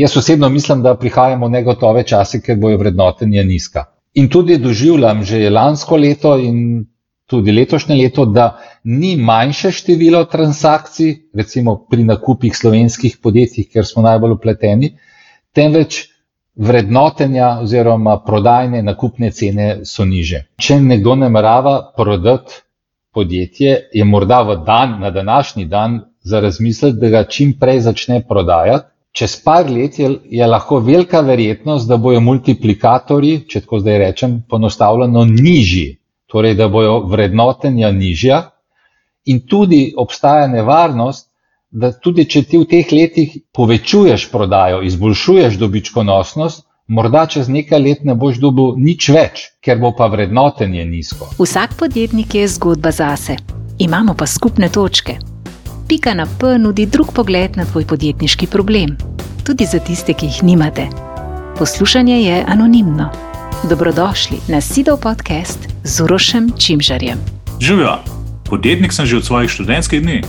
jaz osebno mislim, da prihajamo v negotove čase, ker bojo vrednotenja nizka. In tudi doživljam že lansko leto in tudi letošnje leto, da ni manjše število transakcij, recimo pri nakupih slovenskih podjetij, kjer smo najbolj vpleteni, temveč vrednotenja oziroma prodajne nakupne cene so niže. Če nekdo namerava prodati podjetje, je morda na današnji dan za razmisliti, da ga čim prej začne prodajati. Čez par let je lahko velika verjetnost, da bojo multiplikatorji, če tako zdaj rečem, poenostavljeno nižji, torej da bojo vrednotenja nižja in tudi obstaja nevarnost, da tudi če ti v teh letih povečuješ prodajo, izboljšuješ dobičkonosnost, morda čez nekaj let ne boš dobil nič več, ker bo pa vrednotenje nizko. Vsak podjetnik je zgodba zase. Imamo pa skupne točke. Pika na P nudi drug pogled na tvoj podjetniški problem, tudi za tiste, ki jih nimate. Poslušanje je anonimno. Dobrodošli na Sidov podcast z Urošem Čimžarjem. Živjo, podjetnik sem že od svojih študentskih dni.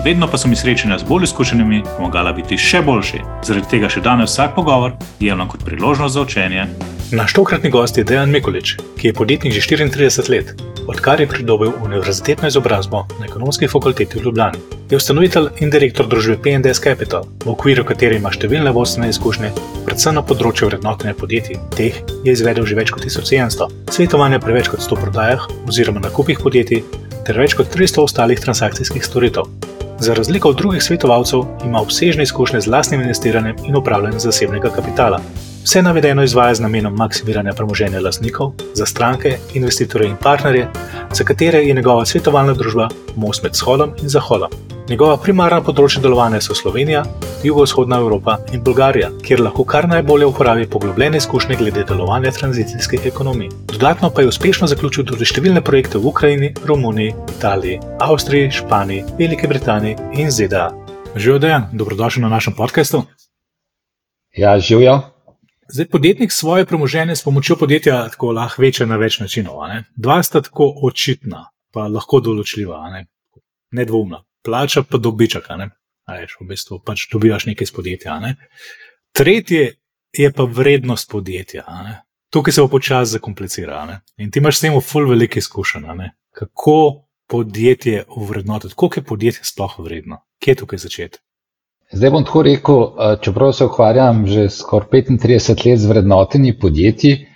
Vedno pa so mi srečanja z bolj izkušenimi pomagala biti še boljši. Zaradi tega še danes vsak pogovor jemljem kot priložnost za učenje. Naš tokratni gost je Dejan Mikulič, ki je podjetnik že 34 let, odkar je pridobil univerzitetno izobrazbo na Ekonomski fakulteti v Ljubljani. Je ustanovitelj in direktor družbe P&S Capital, v okviru katere ima številne vodstvene izkušnje, predvsem na področju vrednotenja podjetij. Teh je izvedel že več kot 1700, svetovanja pri več kot 100 prodajah oziroma nakupih podjetij ter več kot 300 ostalih transakcijskih storitev. Za razliko od drugih svetovalcev ima obsežne izkušnje z lastnim investiranjem in upravljanjem zasebnega kapitala. Vse navedeno izvaja z namenom maksimiranja premoženja lastnikov, za stranke, investitorje in partnerje, za katere je njegova svetovalna družba most med shodom in zahodom. Njegova primarna področja delovanja so Slovenija, jugovzhodna Evropa in Bolgarija, kjer lahko kar najbolje uporabi poglobljene izkušnje glede delovanja tranzicijske ekonomije. Dodatno pa je uspešno zaključil tudi številne projekte v Ukrajini, Romuniji, Italiji, Avstriji, Španiji, Veliki Britaniji in ZDA. Živjo Dejan, dobrodošli na našem podcastu. Ja, živjo. Zdaj, podjetnik svoje premoženje s pomočjo podjetja tako lahko veča na več načinov. Dva sta tako očitna, pa lahko določljiva, nedvoumna. Plača pa dobiček, v bistvu pač dobivaš nekaj iz podjetja. Tretje je pa vrednost podjetja. Tukaj se pa počasi zakomplicira. In ti imaš s tem ful veliko izkušenj. Kako podjetje ovrednotiti, koliko je podjetje sploh vredno? Kje je tukaj začeti? Zdaj bom tako rekel, čeprav se ukvarjam že skoraj 35 let z vrednotenji podjetij,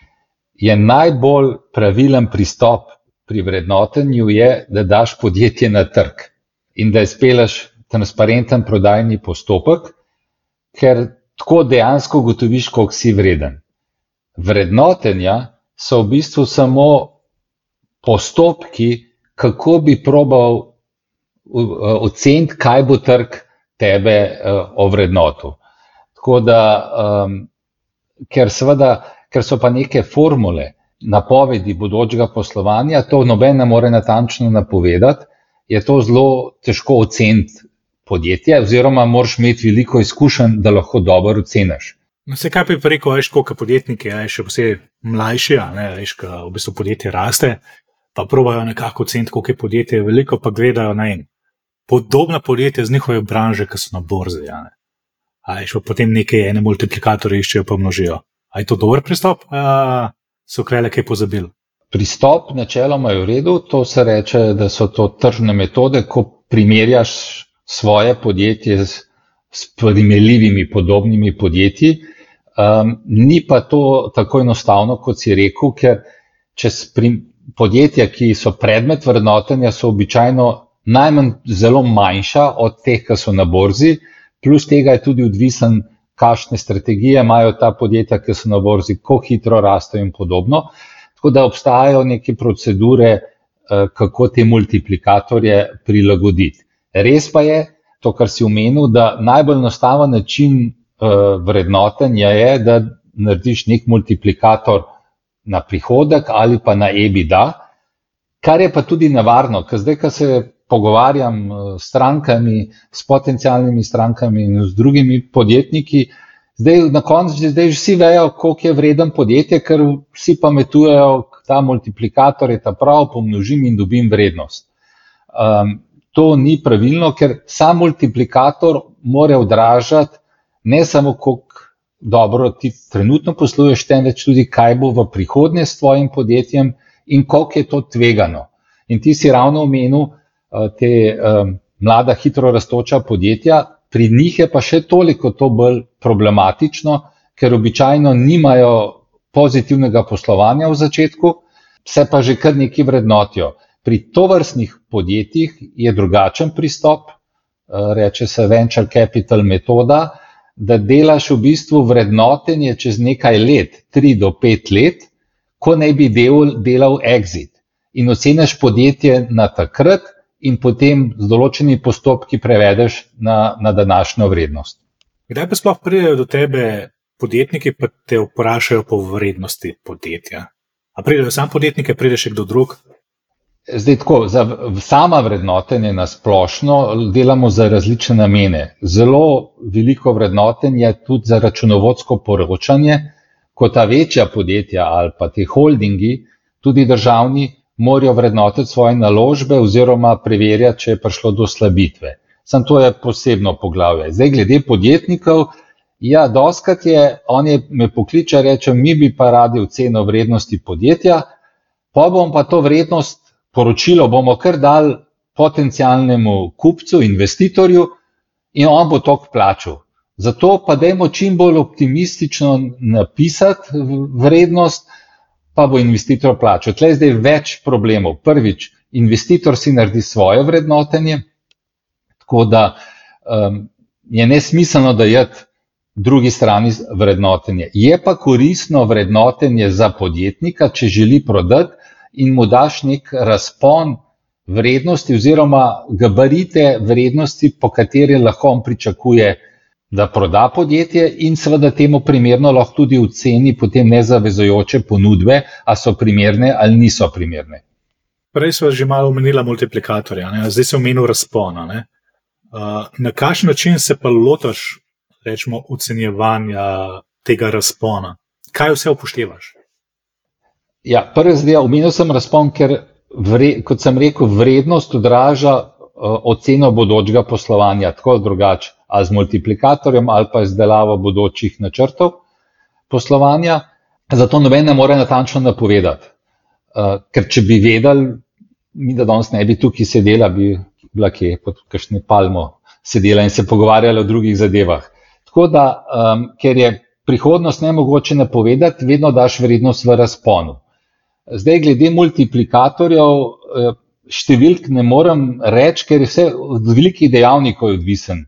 je najbolj pravilen pristop pri vrednotenju je, da daš podjetje na trg in da izpeleš transparenten prodajni postopek, ker tako dejansko ugotoviš, koliko si vreden. Vrednotenja so v bistvu samo postopki, kako bi probal oceniti, kaj bo trg tebe ovrednotil. Tako da, ker so pa neke formule, napovedi bodočega poslovanja, to noben ne more natančno napovedati, je to zelo težko oceniti podjetje, oziroma moraš imeti veliko izkušenj, da lahko dobro oceniš. Vse kaj bi rekel, koliko podjetniki, še posebej mlajši, ko v bistvu podjetje raste, pa probajo nekako oceniti, koliko je podjetje veliko, pa gledajo podobna podjetja z njihove branže, ki so na borzi. Potem ene multiplikatorje iščejo pa množijo. A je to dober pristop? So krele kaj pozabili? Pristop načeloma je v redu, to se reče, da so to tržne metode, ko primerjaš svoje podjetje s primerljivimi podobnimi podjetji. Ni pa to tako enostavno, kot si rekel, ker podjetja, ki so predmet vrednotenja, so običajno najmanj zelo manjša od teh, ki so na borzi, plus tega je tudi odvisen, kakšne strategije imajo ta podjetja, ki so na borzi, kako hitro rastejo in podobno. Tako da obstajajo neke procedure, kako te multiplikatorje prilagoditi. Res pa je, to, kar si omenil, da najbolj enostaven način vrednotenja je, da narediš nek multiplikator na prihodek ali pa na EBITDA, kar je pa tudi nevarno, ker zdaj, ko se pogovarjam s strankami, s potencialnimi strankami in z drugimi podjetniki, na koncu zdaj vsi vejo, koliko je vreden podjetje, ker vsi pametujejo, ta multiplikator je ta prav, pomnožim in dobim vrednost. To ni pravilno, ker sam multiplikator mora odražati ne samo, koliko dobro ti trenutno posluješ, temveč tudi, kaj bo v prihodnje s tvojim podjetjem in koliko je to tvegano. In ti si ravno omenil te mlada, hitro rastoča podjetja, pri njih je pa še toliko to bolj problematično, ker običajno nimajo pozitivnega poslovanja v začetku, se pa že kar nekaj vrednotijo. Pri tovrstnih podjetjih je drugačen pristop, reče se venture capital metoda, da delaš v bistvu vrednotenje čez nekaj let, 3 do 5 let, ko naj bi delal exit. In oceniš podjetje na takrat in potem z določenimi postopki prevedeš na današnjo vrednost. Kdaj pa sploh pridejo do tebe podjetniki, pa te vprašajo po vrednosti podjetja? A pridejo sam podjetnike, pride še kdo drug? Zdaj tako, za sama vrednotenje na splošno delamo za različne namene. Zelo veliko vrednotenje je tudi za računovodsko poročanje, ko ta večja podjetja ali pa te holdingi, tudi državni, morajo vrednotiti svoje naložbe oziroma preverjati, če je prišlo do slabitve. Sam to je posebno poglavje. Zdaj, glede podjetnikov, ja, dostikrat me pokliče, reče, mi bi pa radi oceno vrednosti podjetja, pa bom pa to poročilo bomo kar dali potencialnemu kupcu, investitorju in on bo toliko plačal. Zato pa dajmo čim bolj optimistično napisati vrednost, pa bo investitor plačal. Tle je zdaj več problemov. Prvič, investitor si naredi svoje vrednotenje, tako da je nesmiselno dajati drugi strani vrednotenje. Je pa koristno vrednotenje za podjetnika, če želi prodati in mu daš nek razpon vrednosti oziroma gabarite vrednosti, po kateri lahko on pričakuje, da proda podjetje in seveda temu primerno lahko tudi oceni potem nezavezujoče ponudbe, a so primerne ali niso primerne. Prej sva že malo omenila multiplikatorja, zdaj se omenil razpona. Na kakšen način se pa lotaš, rečemo, ocenjevanja tega razpona? Kaj vse upoštevaš? Ja, prvi zdaj omenil sem razpon, ker, kot sem rekel, vrednost odraža oceno bodočega poslovanja, tako ali drugače, ali z multiplikatorjem ali pa izdelavo bodočih načrtov poslovanja. Zato noben ne more natančno napovedati. Ker če bi vedeli, mi da danes ne bi tukaj sedela, bi bila kje pod kakšno palmo sedela in se pogovarjala o drugih zadevah. Tako da, ker je prihodnost nemogoče napovedati, vedno daš vrednost v razponu. Zdaj, glede multiplikatorjev, številk ne morem reči, ker je vse od velikih dejavnikov odvisen.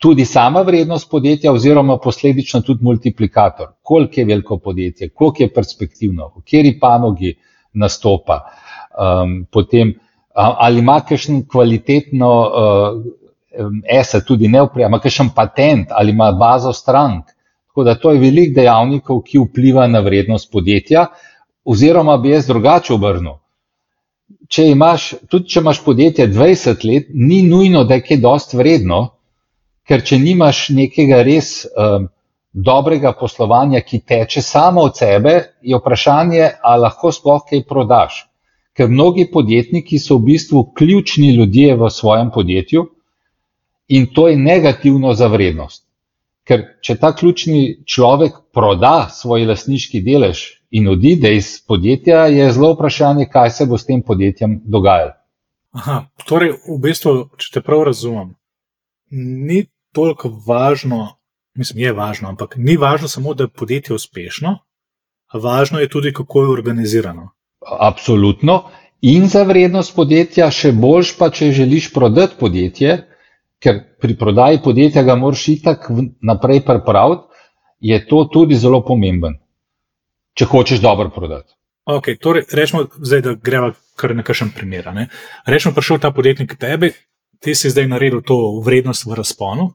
Tudi sama vrednost podjetja oziroma posledično tudi multiplikator. Koliko je veliko podjetje, koliko je perspektivno, v kateri panogi nastopa, potem ali ima kakšen kvalitetno asset, tudi ima kakšen patent, ali ima bazo strank. Tako da to je veliko dejavnikov, ki vpliva na vrednost podjetja, oziroma bi jaz drugače obrnil. Tudi če imaš podjetje 20 let, ni nujno, da je kaj dosti vredno, ker če nimaš nekega res dobrega poslovanja, ki teče samo od sebe, je vprašanje, ali lahko sploh kaj prodaš. Ker mnogi podjetniki so v bistvu ključni ljudje v svojem podjetju in to je negativno za vrednost. Ker če ta ključni človek proda svoj lastniški delež in odide iz podjetja, je zelo vprašanje, kaj se bo s tem podjetjem dogajalo. Torej, v bistvu, če te prav razumem, ni toliko važno, mislim, je važno, ampak ni važno samo, da je podjetje uspešno, važno je tudi, kako je organizirano. Absolutno. In za vrednost podjetja, še boljš pa, če želiš prodati podjetje, ker pri prodaji podjetja ga moraš itak naprej pripraviti, je to tudi zelo pomemben, če hočeš dobro prodati. Ok, torej rečemo zdaj, da greva kar na kakšen primer. Rečemo, prišel ta podjetnik k tebi, ti si zdaj naredil to vrednost v razponu,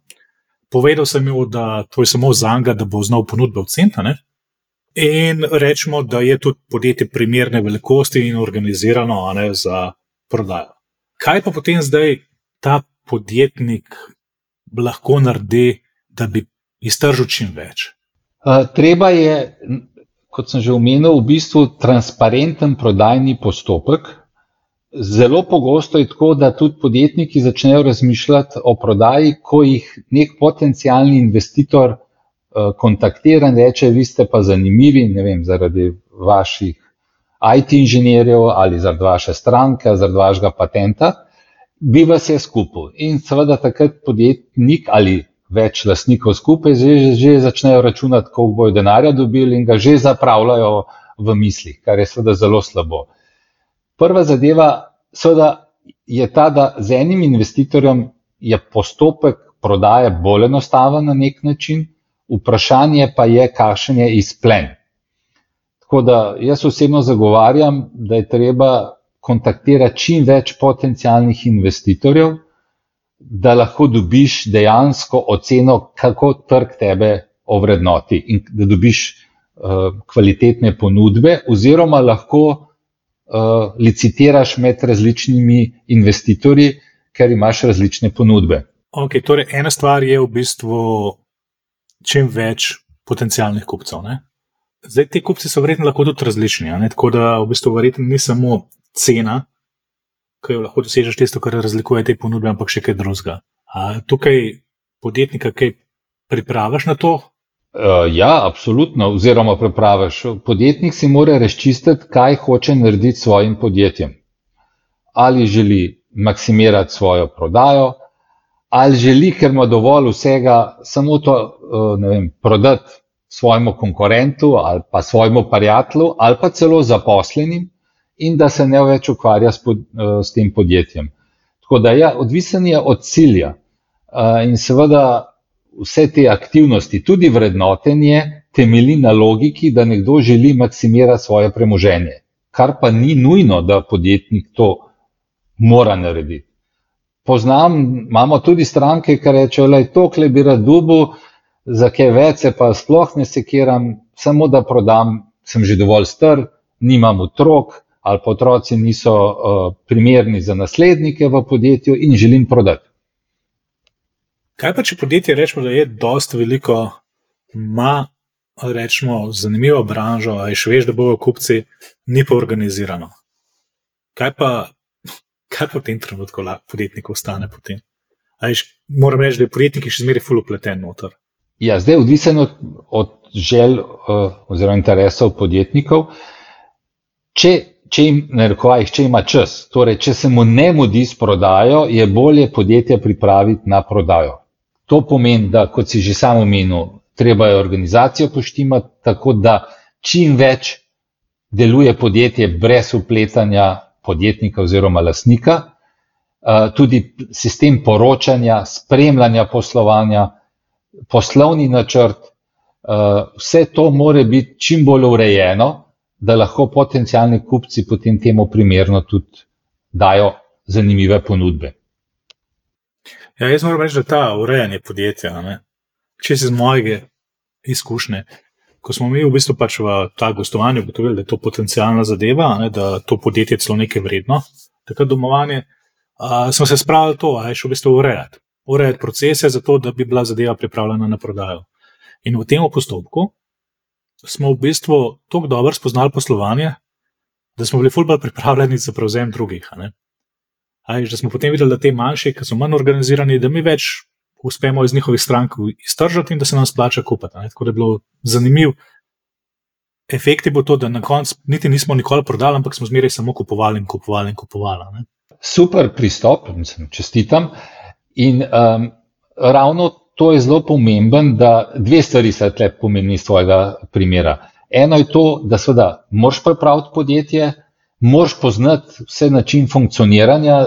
povedal sem mu, da to je samo zanga, da bo znal ponudbe oceniti, in rečemo, da je tudi podjetje primerne velikosti in organizirano za prodajo. Kaj pa potem zdaj ta podjetnik lahko naredi, da bi iztržil čim več? Treba je, kot sem že omenil, v bistvu transparenten prodajni postopek. Zelo pogosto je tako, da tudi podjetniki začnejo razmišljati o prodaji, ko jih nek potencialni investitor kontaktira in reče, vi ste pa zanimivi, ne vem, zaradi vaših IT inženirjev ali zaradi vaše stranke, zaradi vašega patenta, bi vas je skupil. In seveda takrat podjetnik ali več lastnikov skupaj že začnejo računati, koliko bojo denarja dobili in ga že zapravljajo v mislih, kar je seveda zelo slabo. Prva zadeva seveda je ta, da z enim investitorjem je postopek prodaje bolj enostaven na nek način, vprašanje pa je, kakšen je izplen. Tako da jaz osebno zagovarjam, da je treba kontaktirati čim več potencialnih investitorjev, da lahko dobiš dejansko oceno, kako trg tebe ovrednoti in da dobiš kvalitetne ponudbe oziroma lahko licitiraš med različnimi investitorji, ker imaš različne ponudbe. Ok, torej ena stvar je v bistvu čim več potencialnih kupcev. Ne? Zdaj, ti kupci so verjetno lahko tudi različni, ne? Tako da v bistvu verjetno ni samo cena, ki jo lahko dosežeš tisto, kar razlikuje te ponudbe, ampak še kaj drugega. Tukaj podjetnika kaj pripraviš na to? Ja, absolutno, oziroma pripraviš. Podjetnik si mora razčistiti, kaj hoče narediti s svojim podjetjem. Ali želi maksimirati svojo prodajo, ali želi, ker ima dovolj vsega, samo to, ne vem, prodati svojemu konkurentu ali pa svojemu prijatelju ali pa celo zaposlenim in da se ne več ukvarja s tem podjetjem. Tako da ja, odvisen je od cilja in seveda vse te aktivnosti, tudi vrednotenje, temelji na logiki, da nekdo želi maksimirati svoje premoženje, kar pa ni nujno, da podjetnik to mora narediti. Imamo tudi stranke, ki rečejo, da tokle bi rad dobil, za kaj več se pa sploh ne sekiram, samo da prodam, sem že dovolj star, nimam otrok ali pa otroci niso primerni za naslednike v podjetju in želim prodati. Kaj pa, če podjetje rečemo, da je dosti veliko, ima rečemo zanimivo branžo, a še veš, da bojo kupci, ni pa organizirano. Kaj pa v tem trenutku podjetnik ostane potem? Moram reči, da je podjetnik še zmeraj ful upleten noter. Ja, zdaj odvisen od želj oziroma interesov podjetnikov. Če ima čas, torej če se mu ne mudi s prodajo, je bolje podjetje pripraviti na prodajo. To pomeni, da kot si že sam omenil, treba je organizacijo poštimati, tako da čim več deluje podjetje brez vpletanja podjetnika oziroma lastnika, tudi sistem poročanja, spremljanja poslovanja, poslovni načrt, vse to mora biti čim bolj urejeno, da lahko potencialni kupci potem temu primerno tudi dajo zanimive ponudbe. Ja, jaz moram reči, da ta urejanje podjetja, če si z mojega izkušnje, ko smo mi v bistvu pač v ta gostovanju ugotovili, da je to potencialna zadeva, da to podjetje celo nekaj vredno, takrat domovanje, smo se spravili to, še v bistvu urejati procese za to, da bi bila zadeva pripravljena na prodajo. In v tem postopku smo v bistvu toliko dobro spoznali poslovanje, da smo bili ful bolj pripravljeni za prevzem drugih. Da smo potem videli, da te manjši, ki so manj organizirani, da mi več uspemo iz njihovih strank iztržati in da se nam splača kupiti. Tako da je bilo zanimiv. Efekt je bil to, da na koncu niti nismo nikoli prodali, ampak smo zmeraj samo kupovali in kupovali in kupovali. Super pristop, čestitam. In ravno to je zelo pomemben, da dve stvari se tle pomeni iz tvojega primera. Eno je to, da seveda moraš pripraviti podjetje, moraš poznati vse način funkcioniranja,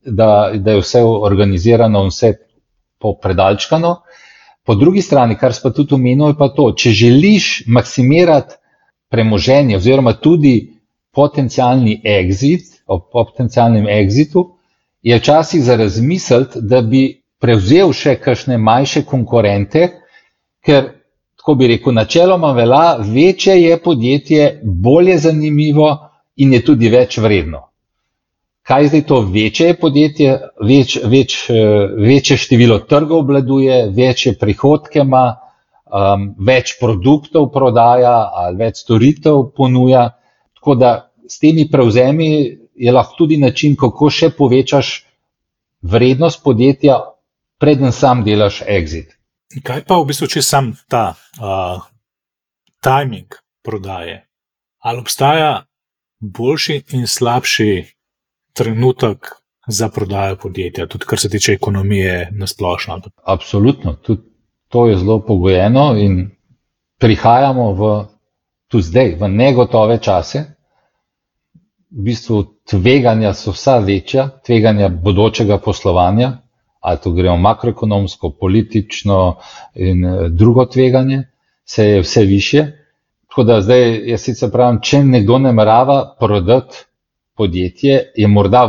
da je vse organizirano in vse popredalčkano. Po drugi strani, kar si pa tudi omenil, je pa to, če želiš maksimirati premoženje oziroma tudi potencialni exit, ob potencialnem exitu, je včasih za razmisliti, da bi prevzel še kakšne manjše konkurente, ker, tako bi rekel, načeloma velja, večje je podjetje, bolje zanimivo in je tudi več vredno. Kaj zdaj to večje je podjetje, večje število trgov obvladuje, večje prihodke ima, več produktov prodaja ali več storitev ponuja, tako da s temi prevzemi je lahko tudi način, kako še povečaš vrednost podjetja, preden sam delaš exit. Kaj pa v bistvu, če sam ta timing prodaje? Ali obstaja boljši in slabši trenutek za prodajo podjetja, tudi kar se tiče ekonomije na splošno? Absolutno, tudi to je zelo pogojeno in prihajamo tudi zdaj v negotove čase. V bistvu tveganja so vsa večja, tveganja bodočega poslovanja, ali to gremo makroekonomsko, politično in drugo tveganje, se je vse višje. Tako da zdaj, jaz sicer pravim, če nekdo namerava prodati podjetje, je morda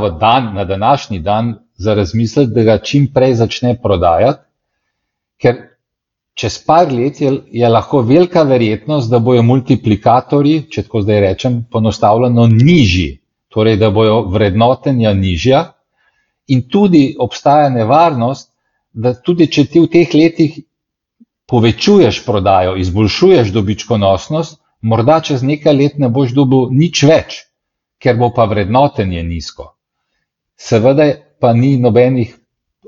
na današnji dan za razmisliti, da ga čim prej začne prodajati, ker čez par let je lahko velika verjetnost, da bojo multiplikatorji, če tako zdaj rečem, poenostavljeno nižji, torej da bojo vrednotenja nižja in tudi obstaja nevarnost, da tudi če ti v teh letih povečuješ prodajo, izboljšuješ dobičkonosnost, morda čez nekaj let ne boš dobil nič več, ker bo pa vrednotenje nizko. Seveda pa ni nobenih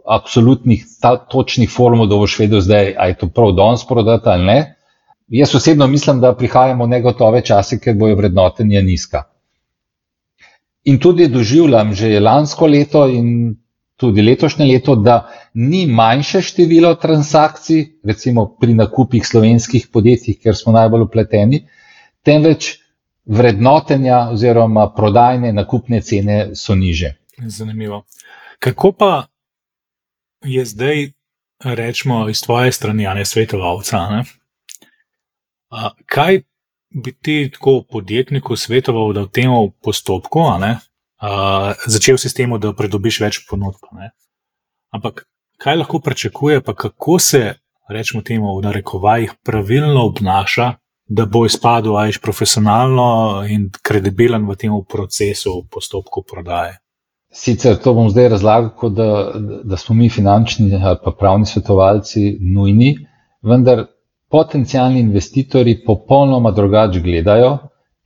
absolutnih točnih formul, da boš vedel zdaj, a je to prav danes prodati ali ne. Jaz osebno mislim, da prihajamo v negotove čase, ker bojo vrednotenja nizka. In tudi doživljam že lansko leto in tudi letošnje leto, da ni manjše število transakcij, recimo pri nakupih slovenskih podjetij, kjer smo najbolj vpleteni, temveč vrednotenja oziroma prodajne nakupne cene so niže. Zanimivo. Kako pa je zdaj, rečemo, iz tvoje strani, a ne svetovalca, ne? Kaj bi ti tako podjetniku svetoval, da v tem postopku, a ne, začel si s tem, da pridobiš več ponudb, ne? Ampak kaj lahko pričakuje, pa kako se, rečemo temu, v narekovajih pravilno obnaša, da bo izpadel profesionalno in kredibilen v tem procesu, v postopku prodaje? Sicer to bom zdaj razlagal, kot da smo mi finančni ali pa pravni svetovalci nujni, vendar potencialni investitorji popolnoma drugače gledajo,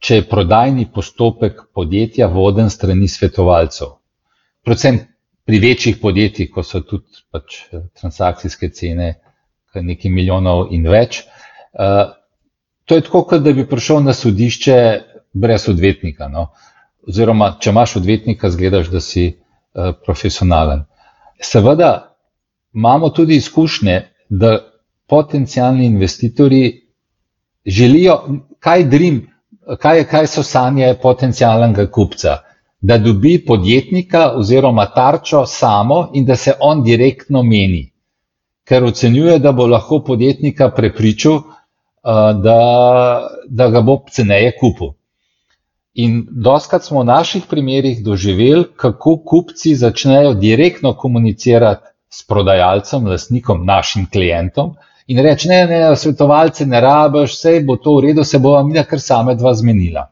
če je prodajni postopek podjetja voden strani svetovalcev. Predvsem pri večjih podjetjih, ko so tudi transakcijske cene nekaj milijonov in več. To je tako, kot da bi prišel na sodišče brez odvetnika, no? Oziroma, če imaš odvetnika, zgledaš, da si profesionalen. Seveda imamo tudi izkušnje, da potencialni investitorji želijo, kaj so sanje potencialnega kupca, da dobi podjetnika oziroma tarčo samo in da se on direktno meni, ker ocenjuje, da bo lahko podjetnika prepričal, da ga bo ceneje kupil. In dostikrat smo v naših primerih doživeli, kako kupci začnejo direktno komunicirati s prodajalcem, lastnikom, našim klientom in reči, ne, svetovalce ne rabiš, sej bo to v redu, se bova mina kar same dva zmenila.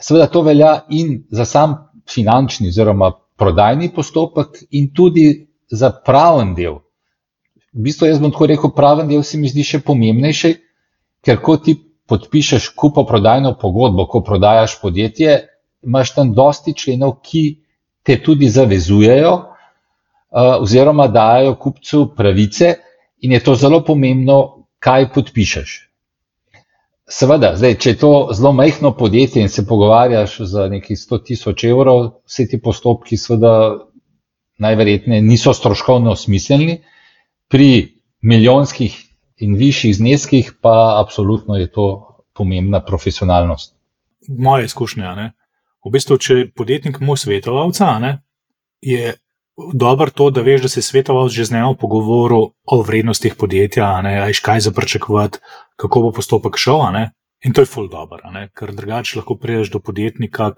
Seveda to velja in za sam finančni oziroma prodajni postopek in tudi za praven del. V bistvu jaz bom tako rekel, praven del se mi zdi še pomembnejši, ker ko ti podpišeš kupoprodajno pogodbo, ko prodajaš podjetje, imaš tam dosti členov, ki te tudi zavezujejo oziroma dajo kupcu pravice in je to zelo pomembno, kaj podpišeš. Seveda, zdaj, če je to zelo majhno podjetje in se pogovarjaš za nekih 100.000 evrov, vsi ti postopki seveda najverjetneje niso stroškovno smiselni, pri milijonskih in višjih zneskih pa absolutno je to pomembna profesionalnost. Moje izkušnje, ne? V bistvu, če podjetnik mu svetovalca, ne, je dobro to, da veš, da si svetovalc že z njim pogovoril o vrednostih podjetja, ne, ajš kaj za pričakovati, kako bo postopek šel, ne? In to je ful dobro, ne? Ker drugače lahko prideš do podjetnika,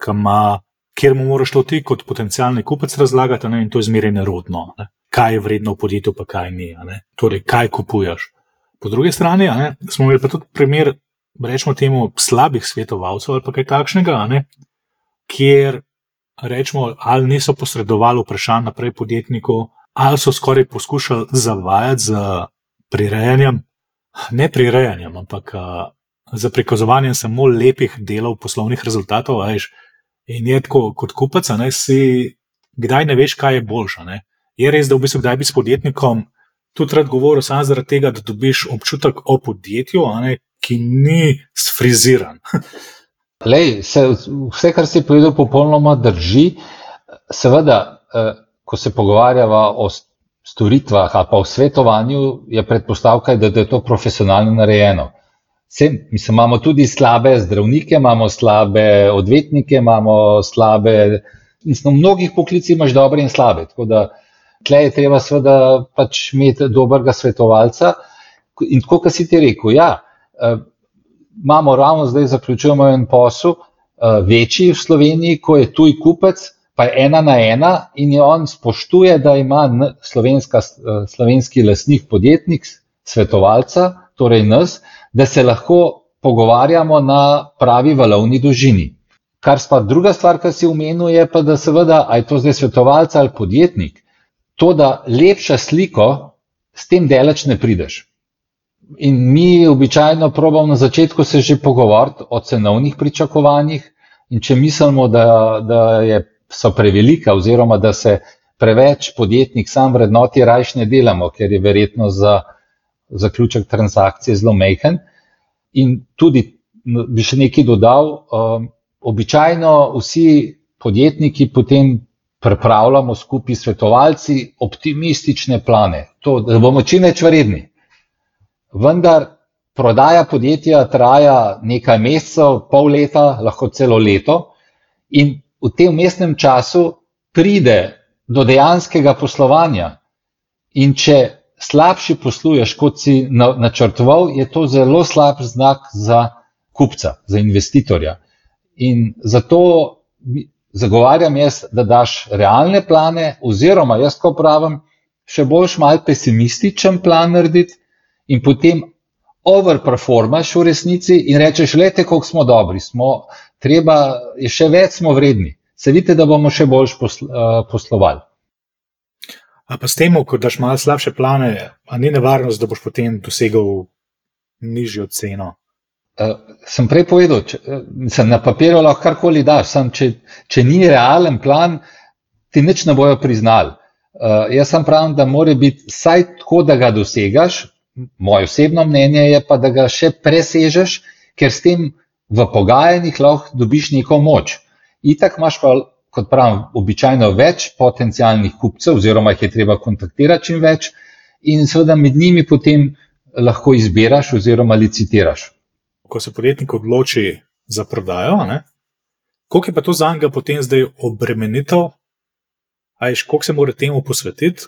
kjer mu moraš to ti kot potencialni kupec razlagati, ne? In to je zmeraj nerodno, ne? Kaj je vredno v podjetju, pa kaj ni, ne? Torej, kaj kupuješ. Po drugi strani, ne, smo imeli pa tudi primer, rečemo temu, slabih svetovalcev ali pa kaj takšnega, ne, kjer, rečemo, ali niso posredovali vprašanj naprej podjetniku, ali so skoraj poskušali zavajati z prirejanjem, ne prirejanjem, ampak za prikazovanjem samo lepih delov poslovnih rezultatov, veš, in je tako kot kupec, ne, si kdaj ne veš, kaj je boljša, ne. Je res, da v bistvu kdaj bi s podjetnikom tudi rad govoril samo zaradi tega, da dobiš občutek o podjetju, ki ni sfriziran. Lej, vse, kar si povedal, popolnoma drži. Seveda, ko se pogovarjava o storitvah ali pa o svetovanju, je predpostavka, da je to profesionalno narejeno. Imamo tudi slabe zdravnike, imamo slabe odvetnike, imamo slabe, v mnogih poklicih imaš dobre in slabe, tako da tle je treba seveda pač imeti dobrega svetovalca. In tako, kot si ti rekel, imamo ravno zdaj zaključujemo en posel, večji v Sloveniji, ko je tuj kupec, pa je 1 na 1 in on spoštuje, da ima slovenski lastnik, podjetnik, svetovalca, torej nas, da se lahko pogovarjamo na pravi valovni dolžini. Druga stvar, kar si omenil, je pa, da seveda, a je to zdaj svetovalca ali podjetnik, to, da lepša sliko, s tem daleč ne prideš. In mi običajno probamo na začetku se že pogovoriti o cenovnih pričakovanjih in če mislimo, da so prevelika oziroma da se preveč podjetnik sam vrednoti, rajš ne delamo, ker je verjetno za zaključek transakcije zelo majhen. In tudi bi še nekaj dodal, običajno vsi podjetniki potem pripravljamo skupaj svetovalci optimistične plane, da bomo čim več vredni. Vendar prodaja podjetja traja nekaj mesecev, pol leta, lahko celo leto in v tem vmesnem času pride do dejanskega poslovanja. In če slabši posluješ, kot si načrtoval, je to zelo slab znak za kupca, za investitorja. In zato zagovarjam jaz, da daš realne plane, oziroma jaz ko pravim, še boljš mal pesimističen plan narediti in potem overperformaš v resnici in rečeš, lejte, koliko smo dobri, je še več smo vredni. Se vidite, da bomo še boljš poslovali. A pa s tem, ko daš malo slabše plane, a ni nevarnost, da boš potem dosegal nižjo ceno? Sem prej povedal, na papirju lahko karkoli daš, če ni realen plan, ti nič ne bojo priznali. Jaz sem pravim, da mora biti vsaj tako, da ga dosegaš, moje osebno mnenje je pa, da ga še presežeš, ker s tem v pogajanjih lahko dobiš neko moč. Itak imaš pa, kot pravim, običajno več potencialnih kupcev, oziroma jih je treba kontaktirati čim več in seveda med njimi potem lahko izbiraš oziroma licitiraš. Ko se podjetnik odloči za prodajo, koliko je pa to za njega potem zdaj obremenitev? Koliko se mora temu posvetiti?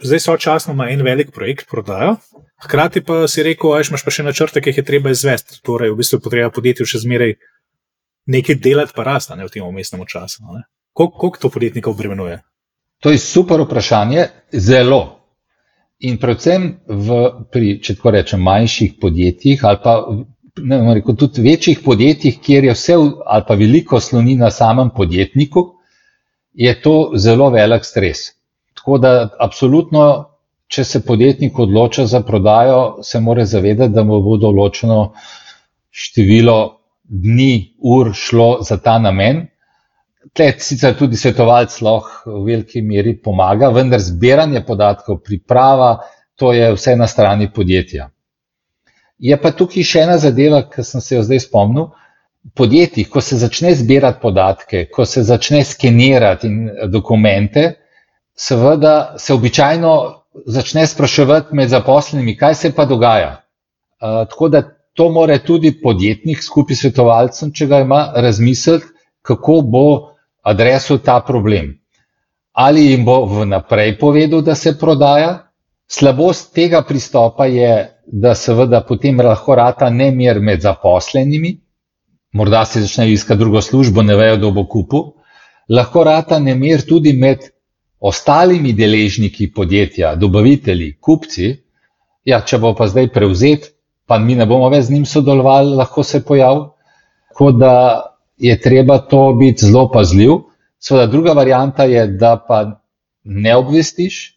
Zdaj sočasno ima en velik projekt prodajo, hkrati pa si rekel, imaš pa še načrte, ki jih je treba izvesti. Torej, v bistvu potreba podjetju še zmeraj nekaj delati pa rasta v tem vmesnem času. Koliko to podjetnika obremenjuje? To je super vprašanje, zelo. In predvsem če tako rečem, manjših podjetjih ali pa tudi večjih podjetjih, kjer je vse ali pa veliko sloni na samem podjetniku, je to zelo velik stres. Tako da absolutno, če se podjetnik odloča za prodajo, se mora zavedati, da mu bo določeno število dni, ur šlo za ta namen. Tle sicer tudi svetovalec lahko v veliki meri pomaga, vendar zbiranje podatkov, priprava, to je vse na strani podjetja. Je pa tukaj še ena zadeva, ki sem se jo zdaj spomnil. V podjetjih, ko se začne zbirati podatke, ko se začne skenirati dokumente, seveda se običajno začne spraševati med zaposlenimi, kaj se pa dogaja. Tako da to mora tudi podjetnik skupaj s svetovalcem, če ga ima, razmisliti, kako bo adresal ta problem. Ali jim bo vnaprej povedal, da se prodaja? Slabost tega pristopa je, da seveda potem lahko rata nemir med zaposlenimi, morda se začnejo iskati drugo službo, ne vejo, kdo bo kupil. Lahko rata nemir tudi med ostalimi deležniki podjetja, dobavitelji, kupci. Če bo pa zdaj prevzet, pa mi ne bomo več z njim sodelovali, lahko se pojavi. Tako da je treba to biti zelo pazljiv. Seveda druga varianta je, da pa ne obvestiš,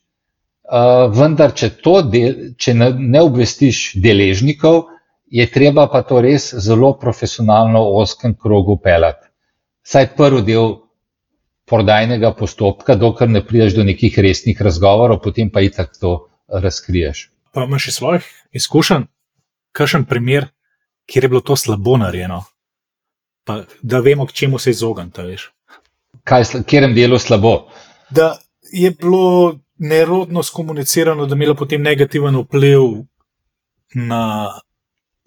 vendar če ne obvestiš deležnikov, je treba pa to res zelo profesionalno v ozkem krogu peljati. Vsaj prvi del prodajnega postopka, dokler ne prideš do nekih resnih razgovorov, potem pa itak to razkriješ. Pa imaš iz svojih izkušenj kakšen primer, kjer je bilo to slabo narejeno, pa da vemo, k čemu se izogniti, veš? Kjerem delu slabo? Da je bilo nerodno skomunicirano, da je imelo potem negativen vpliv na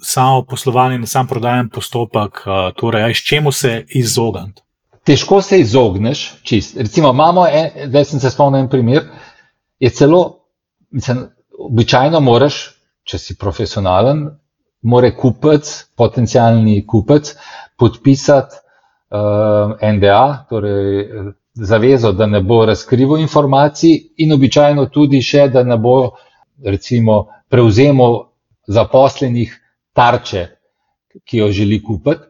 samo poslovanje, na sam prodajen postopek, torej, s čemu se izogniti? Težko se izogneš, čist. Recimo, zdaj sem se spomnil en primer, je celo, običajno moraš, če si profesionalen, mora kupec, potencialni kupec, podpisati NDA, torej zavezo, da ne bo razkrival informacij in običajno tudi še, da ne bo, recimo, prevzemal zaposlenih tarče, ki jo želi kupiti.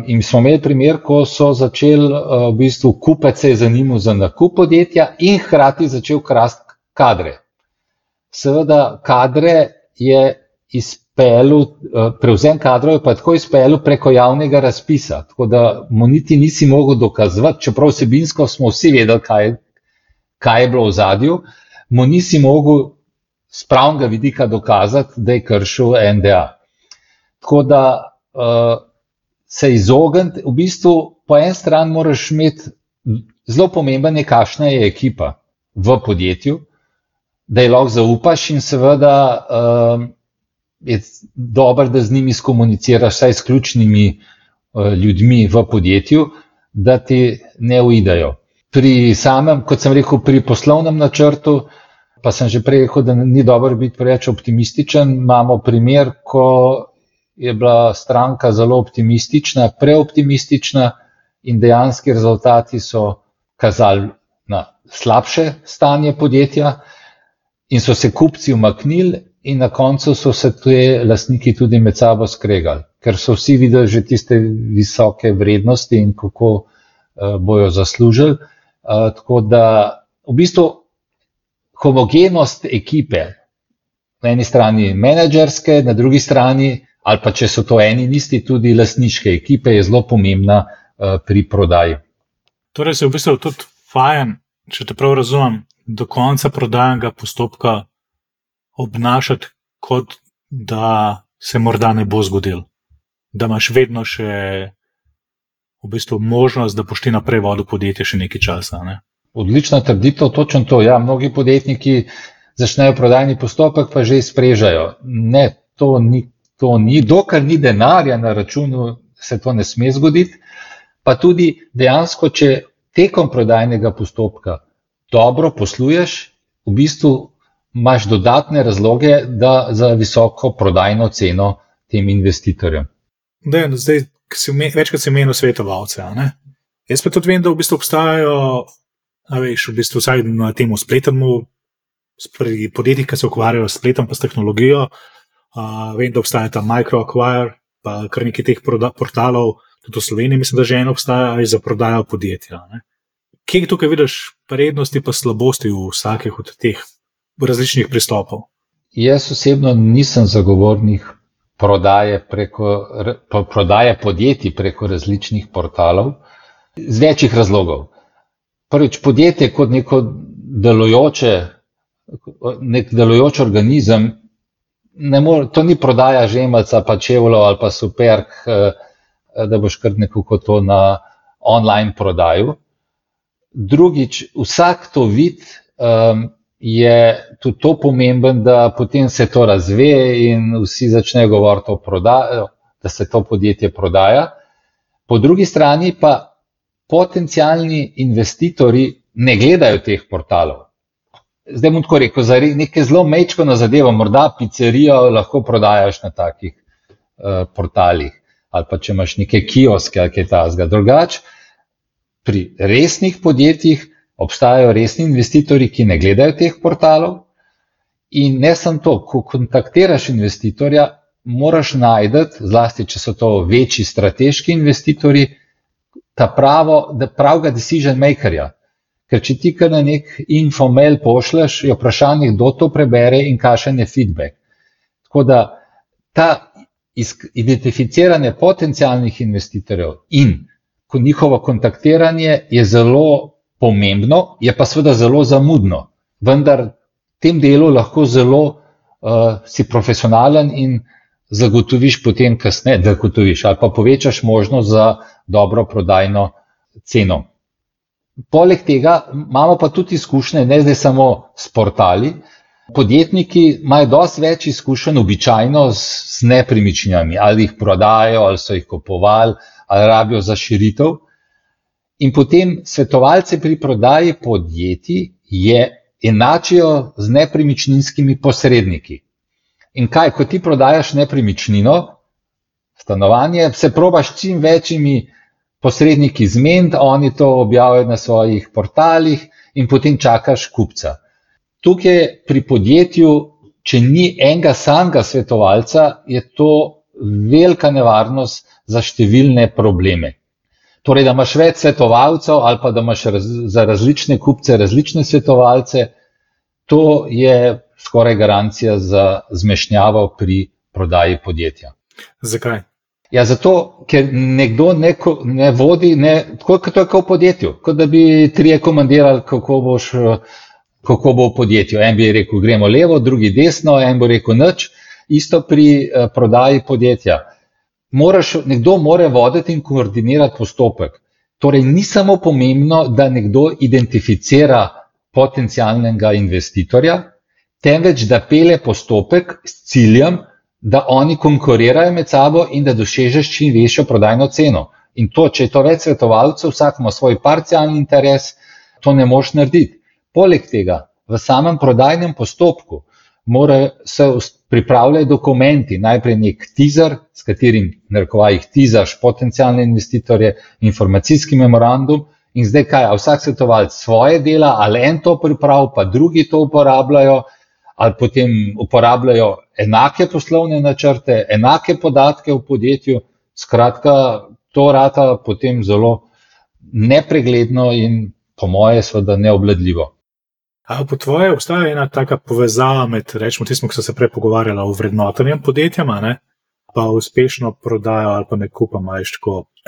In smo imeli primer, ko so začeli, v bistvu, kupec se je zanimal za nakup podjetja in hkrati začel krasti kadre. Seveda, prevzem kadrov je pa tako izpeljal preko javnega razpisa, tako da mu niti nisi mogel dokazovati, čeprav vsebinsko smo vsi vedeli, kaj je bilo v ozadju, mu nisi mogel z pravnega vidika dokazati, da je kršil NDA. Tako da se izogniti, v bistvu po en stran moraš imeti zelo pomemben je, kakšna je ekipa v podjetju, da je lahko zaupaš in seveda je dobro, da z njimi skomuniciraš, vsaj s ključnimi ljudmi v podjetju, da ti ne uidejo. Pri samem, kot sem rekel, pri poslovnem načrtu, pa sem že prej rekel, da ni dobro biti preveč optimističen, imamo primer, ko je bila stranka zelo optimistična, preoptimistična in dejanski rezultati so kazali na slabše stanje podjetja in so se kupci umaknili in na koncu so se te lastniki tudi med sabo skregali, ker so vsi videli že tiste visoke vrednosti in kako bojo zaslužili. Tako da v bistvu homogenost ekipe, na eni strani menedžerske, na drugi strani, ali pa če so to eni in isti, tudi lastniške ekipe, je zelo pomembna pri prodaji. Torej se v bistvu tudi fajn, če te prav razumem, do konca prodajnega postopka obnašati, kot da se morda ne bo zgodil. Da imaš vedno še v bistvu možnost, da boš ti naprej vodil podjetje še nekaj časa. Ne? Odlična trditev, točno to. Ja, mnogi podjetniki začnejo prodajni postopek, pa že izprežajo. Ne, to ni, dokler ni denarja na računu, se to ne sme zgoditi. Pa tudi dejansko, če tekom prodajnega postopka dobro posluješ, v bistvu imaš dodatne razloge za visoko prodajno ceno tem investitorjem. Zdaj, večkrat si omenil svetovalce. Jaz pa tudi vem, da v bistvu obstajajo, vsaj na temu spletnemu, pri podjetjih, ki se ukvarjajo s spletom pa s tehnologijo, vem, da obstaja ta MicroAcquire, pa kar nekaj teh portalov, tudi v Sloveniji mislim, da že eno obstaja za prodajo podjetja. Kje tukaj vidiš prednosti pa slabosti v vsakih od teh različnih pristopov? Jaz osebno nisem zagovornik prodaje podjetij preko različnih portalov z večjih razlogov. Prvič, podjetje kot nek delujoč organizem, to ni prodaja žemelca, pa čevljev ali pa superg, da boš kar nekako to na online prodaju. Drugič, vsak to vid je tudi to pomemben, da potem se to razve in vsi začnejo govoriti o prodaji, da se to podjetje prodaja. Po drugi strani pa potencialni investitorji ne gledajo teh portalov. Zdaj bom tako rekel, za nekaj zelo mečkano zadevo, morda pizzerijo lahko prodajaš na takih portalih, ali pa če imaš neke kioske ali kaj takega. Drugače, pri resnih podjetjih obstajajo resni investitorji, ki ne gledajo teh portalov in ne samo to, ko kontaktiraš investitorja, moraš najti, zlasti če so to večji strateški investitorji, pravega decision makerja. Ker če ti kar na nek infomail pošleš, je vprašanje, kdo to prebere in kakšen je feedback. Tako da ta identificiranje potencialnih investitorjev in njihovo kontaktiranje je zelo pomembno, je pa seveda zelo zamudno. Vendar v tem delu lahko zelo si profesionalen in zagotoviš potem kasneje, ali pa povečaš možnost za dobro prodajno ceno. Poleg tega imamo pa tudi izkušnje, ne zdaj samo s portali. Podjetniki imajo dosti več izkušenj običajno z nepremičninami, ali jih prodajo, ali so jih kupovali, ali rabijo za širitev. In potem svetovalce pri prodaji podjetij enačijo z nepremičninskimi posredniki. In kaj, ko ti prodajaš nepremičnino, stanovanje, se probaš čim večjimi posredniki zmeniti, oni to objavijo na svojih portalih in potem čakaš kupca. Tukaj pri podjetju, če ni enega samega svetovalca, je to velika nevarnost za številne probleme. Torej, da imaš več svetovalcev ali pa da imaš za različne kupce različne svetovalce, to je skoraj garancija za zmešnjavo pri prodaji podjetja. Zakaj? Ja, zato, ker nekdo ne vodi, tako kot to je v podjetju, kot da bi trije komandirali, kako bo v podjetju. En bi rekel, gremo levo, drugi desno, en bo rekel nič. Isto pri prodaji podjetja. Nekdo mora voditi in koordinirati postopek. Torej, ni samo pomembno, da nekdo identificira potencialnega investitorja, temveč da pelje postopek s ciljem, da oni konkurirajo med sabo in da dosežeš čim večjo prodajno ceno. In to, če je to več svetovalcev, vsak ima svoj parcialni interes, to ne moš narediti. Poleg tega, v samem prodajnem postopku se pripravljajo dokumenti, najprej nek teaser, s katerim narekovajih teasaš potencialne investitorje, informacijski memorandum in zdaj kaj, vsak svetovalec svoje dela, ali en to pripravi, pa drugi to uporabljajo, ali potem uporabljajo enake poslovne načrte, enake podatke v podjetju, skratka, to rata potem zelo nepregledno in po moje seveda neobvladljivo. A po tvoje obstaja ena taka povezava med, rečemo, tismo, ki so se prej pogovarjala o vrednotenjem podjetjama, pa uspešno prodajo ali pa nekupom, a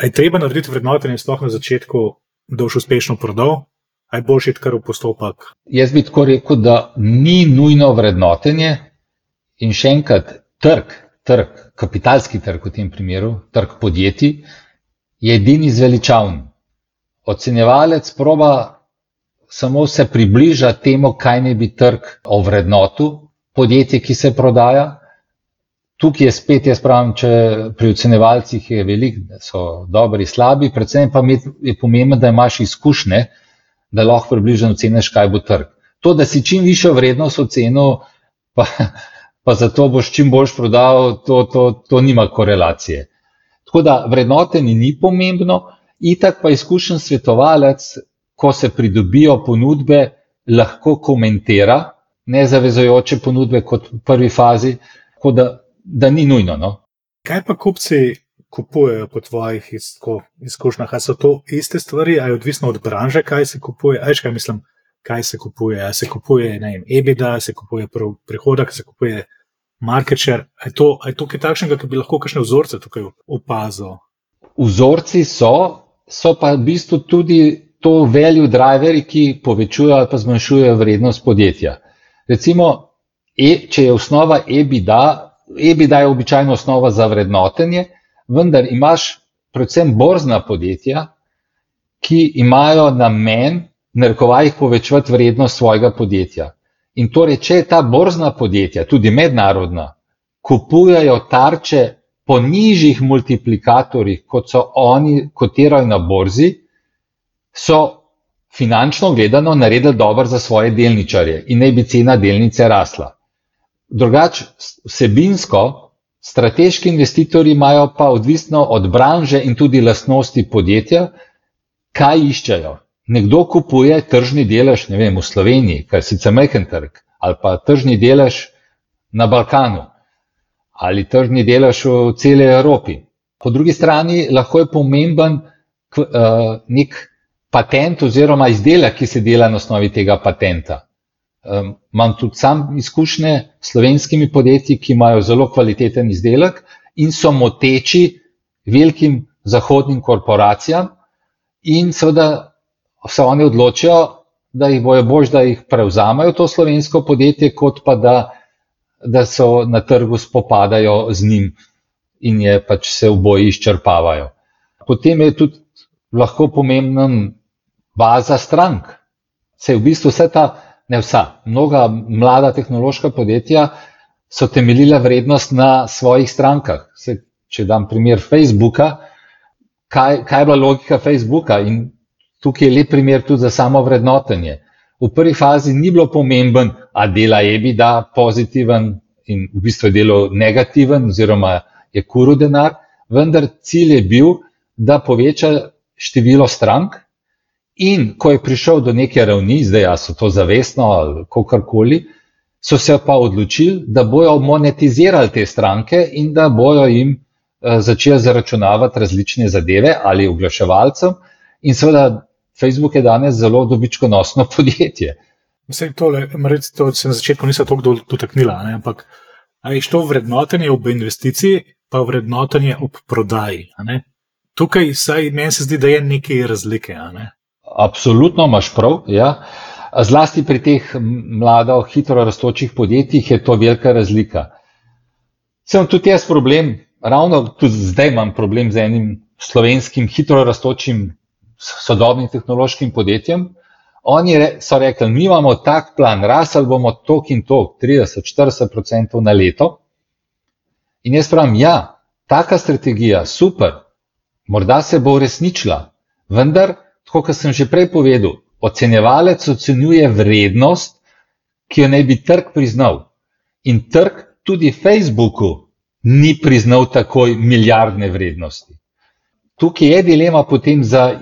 je treba narediti vrednotenje sploh na začetku, da boš uspešno prodal? A je boljše iti kar v postopek? Jaz bi tako rekel, da ni nujno vrednotenje in še enkrat trg, kapitalski trg v tem primeru, trg podjetij, je edini zveličavn. Ocenjevalec proba samo se približa temu, kaj ne bi trg ovrednotil podjetje, ki se prodaja. Tukaj je spet, jaz pravim, če pri ocenjevalcih je veliko, so dobri, slabi, predvsem pa je pomembno, da imaš izkušnje, da lahko približno oceniš, kaj bo trg. To, da si čim višjo vrednost ocenil, pa zato boš čim boljš prodal, to nima korelacije. Tako da vrednotenje ni pomembno, itak pa izkušen svetovalec, ko se pridobijo ponudbe, lahko komentira nezavezujoče ponudbe kot v prvi fazi, tako da ni nujno. No? Kaj pa kupci kupujejo po tvojih izkušnjah? A so to iste stvari, a je odvisno od branže, kaj se kupuje? Kaj se kupuje? A se kupuje, EBITDA, se kupuje prihodek, se kupuje market share? A je to kaj takšnega, ki bi lahko kakšne vzorce tukaj opazil? Vzorci so pa v bistvu tudi to value driveri, ki povečujejo ali pa zmanjšujejo vrednost podjetja. Recimo, če je osnova EBITDA je običajno osnova za vrednotenje, vendar imaš predvsem borzna podjetja, ki imajo namen narekovajih povečevati vrednost svojega podjetja. In torej, če je ta borzna podjetja, tudi mednarodna, kupujajo tarče po nižjih multiplikatorjih, kot so oni kotirajo na borzi, so finančno gledano naredili dobro za svoje delničarje in naj bi cena delnice rasla. Drugače, vsebinsko, strateški investitorji imajo pa odvisno od branže in tudi lastnosti podjetja, kaj iščejo. Nekdo kupuje tržni delež, v Sloveniji, kar je sicer majhen trg, ali pa tržni delež na Balkanu, ali tržni delež v celi Evropi. Po drugi strani lahko je pomemben nek patent oziroma izdelek, ki se dela na osnovi tega patenta. Imam tudi sam izkušnje s slovenskimi podjetji, ki imajo zelo kvaliteten izdelek in so moteči velikim zahodnim korporacijam, in seveda se oni odločijo, da jih bojo bolj, da jih prevzamajo to slovensko podjetje, kot pa da so na trgu spopadajo z njim in je pač se oboji izčrpavajo. Potem je tudi lahko pomembna baza strank. Se v bistvu mnoga mlada tehnološka podjetja so temeljila vrednost na svojih strankah. Če dam primer Facebooka, kaj je bila logika Facebooka, in tukaj je lep primer tudi za samo vrednotenje. V prvi fazi ni bilo pomemben, a dela EBITDA pozitiven in v bistvu je delo negativen oziroma je kuril denar, vendar cilj je bil, da poveča število strank, in ko je prišel do neke ravni, zdaj so to zavestno ali kakorkoli, so se pa odločili, da bojo monetizirali te stranke in da bojo jim začeli zaračunavati različne zadeve ali oglaševalcem, in seveda Facebook je danes zelo dobičkonosno podjetje. Vse tole, to se na začetku nisem toliko dotaknila, ampak a je to vrednotenje ob investiciji, pa vrednotenje ob prodaji. Tukaj meni se zdi, da je nekaj razlike. Absolutno imaš prav, ja. Zlasti pri teh mlado, hitro rastočih podjetjih je to velika razlika. Sem tudi jaz problem, ravno tudi zdaj imam problem z enim slovenskim hitro rastočim sodobnim tehnološkim podjetjem. Oni so rekli, mi imamo tak plan, rasli bomo tok in tok, 30-40% na leto. In jaz pravim, ja, taka strategija, super, morda se bo uresničila, vendar, tako kot sem že prej povedal, ocenjevalec ocenjuje vrednost, ki jo naj bi trg priznal. In trg tudi Facebooku ni priznal takoj milijardne vrednosti. Tukaj je dilema potem za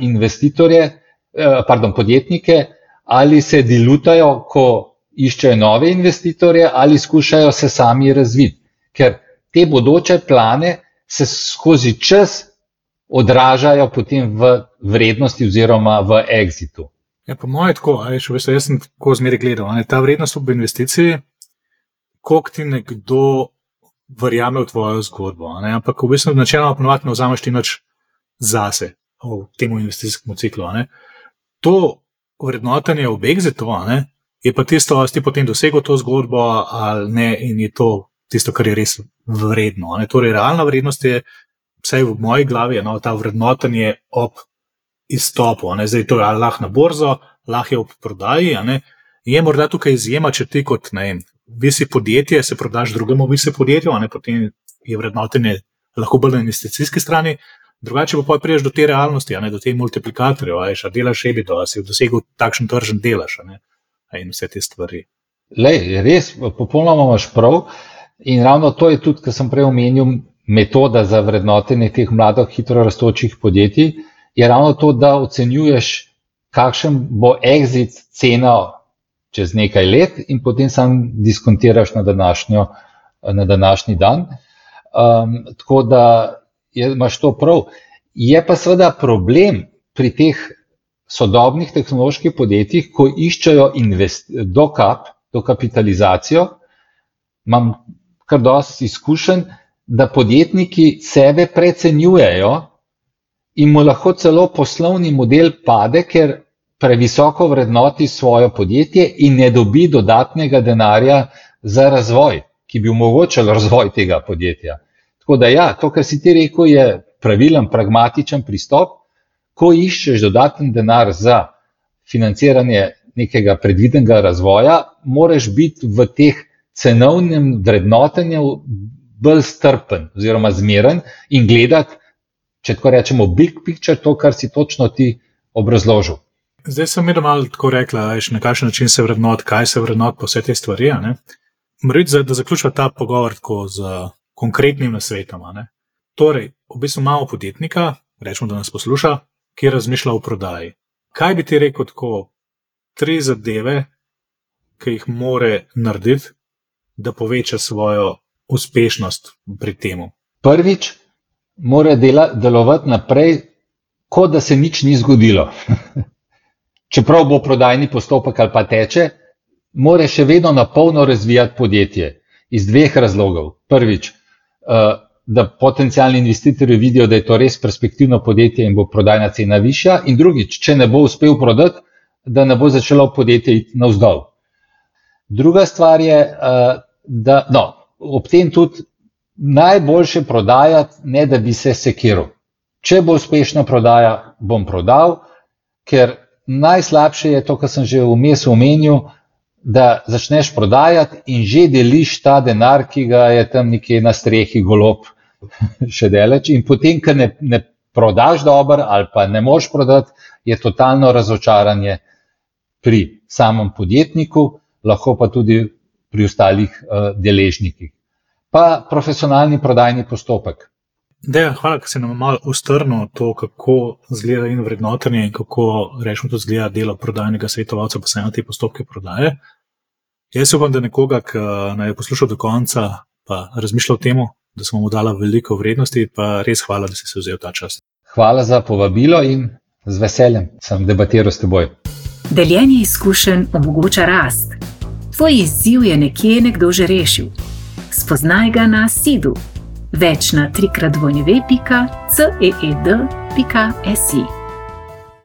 podjetnike, ali se dilutajo, ko iščejo nove investitorje, ali skušajo se sami razviti. Ker te bodoče plane se skozi čas odražajo potem v vrednosti oziroma v exitu. Ja, po moje tako, jaz sem tako zmeraj gledal, ta vrednost ob investiciji, koliko ti nekdo verjame v tvojo zgodbo, ampak v bistvu načeloma ponovadi ne vzameš ti nič zase v tem investicijskem ciklu. To vrednotenje ob exitu je pa tisto, ali ti potem dosegel to zgodbo ali ne, in je to tisto, kar je res vredno. Torej, realna vrednost je, vsaj v moji glavi, ta vrednotenje ob izstopu. Zdaj to je lahko na borzo, lahko je ob prodaji. Je morda tukaj izjema, če ti kot visi podjetje, se prodaš drugemu visi podjetju, potem je vrednotenje lahko bolj na investicijski strani. Drugače pa priješ do te realnosti, do te multiplikatorjev, a delaš EBITDA, a si dosegel takšen tržen delež in vse te stvari. Lej, res, popolnoma imaš prav, in ravno to je tudi, kar sem prej omenil, metoda za vrednotenje teh mladih, hitro rastočih podjetij, je ravno to, da ocenjuješ, kakšen bo exit cena čez nekaj let in potem sam diskontiraš na današnji dan. Tako da imaš to prav. Je pa seveda problem pri teh sodobnih tehnoloških podjetjih, ko iščejo dokapitalizacijo, imam kar dosti izkušenj, da podjetniki sebe precenjujejo in mu lahko celo poslovni model pade, ker previsoko vrednoti svoje podjetje in ne dobi dodatnega denarja za razvoj, ki bi omogočal razvoj tega podjetja. Tako da ja, to, kar si ti rekel, je pravilen, pragmatičen pristop. Ko iščeš dodaten denar za financiranje nekega predvidenega razvoja, moraš biti v teh cenovnem vrednotenju bolj strpen oziroma zmeren in gledati, če tako rečemo, big picture, to, kar si točno ti obrazložil. Zdaj sem malo tako rekla, na kakšen način se vrednot, kaj se vrednot po vse te stvari. Moram da zaključva ta pogovor tako z konkretnim nasvetom. Torej, v bistvu imamo podjetnika, rečemo, da nas posluša, ki razmišlja o prodaji. Kaj bi ti rekel tako 3 zadeve, ki jih more narediti, da poveča svojo uspešnost pri temu? Prvič, mora delovati naprej, kot da se nič ni zgodilo. Čeprav bo prodajni postopek ali pa teče, mora še vedno na polno razvijati podjetje iz 2 razlogov. Prvič, da potencialni investitorji vidijo, da je to res perspektivno podjetje in bo prodajna cena višja. In drugič, če ne bo uspel prodati, da ne bo začelo podjetje iti navzdol. Druga stvar je, da ob tem tudi najboljše prodajati, ne da bi se sekiral. Če bo uspešna prodaja, bom prodal, ker najslabše je to, kar sem že vmes omenil, da začneš prodajati in že deliš ta denar, ki ga je tam nekje na strehi golob še daleč. In potem, ker ne prodaš dobro ali pa ne moreš prodati, je totalno razočaranje pri samem podjetniku, lahko pa tudi pri ostalih deležnikih. Pa profesionalni prodajni postopek. Dejan, hvala, ker si nam malo ustrnil to, kako izgleda in vrednotenje in kako rečemo tudi izgleda delo prodajnega svetovalca, pa se na te postopke prodaje. Jaz upam, da nekoga, ki naj je poslušal do konca, pa razmišljal o temu, da smo mu dala veliko vrednosti, pa res hvala, da si se vzel ta čas. Hvala za povabilo in z veseljem sem debatiral s teboj. Deljenje izkušenj omogoča rast. Tvoj izziv je nekje nekdo že rešil. Spoznaj ga na Seedu. Več na www.ceed.si.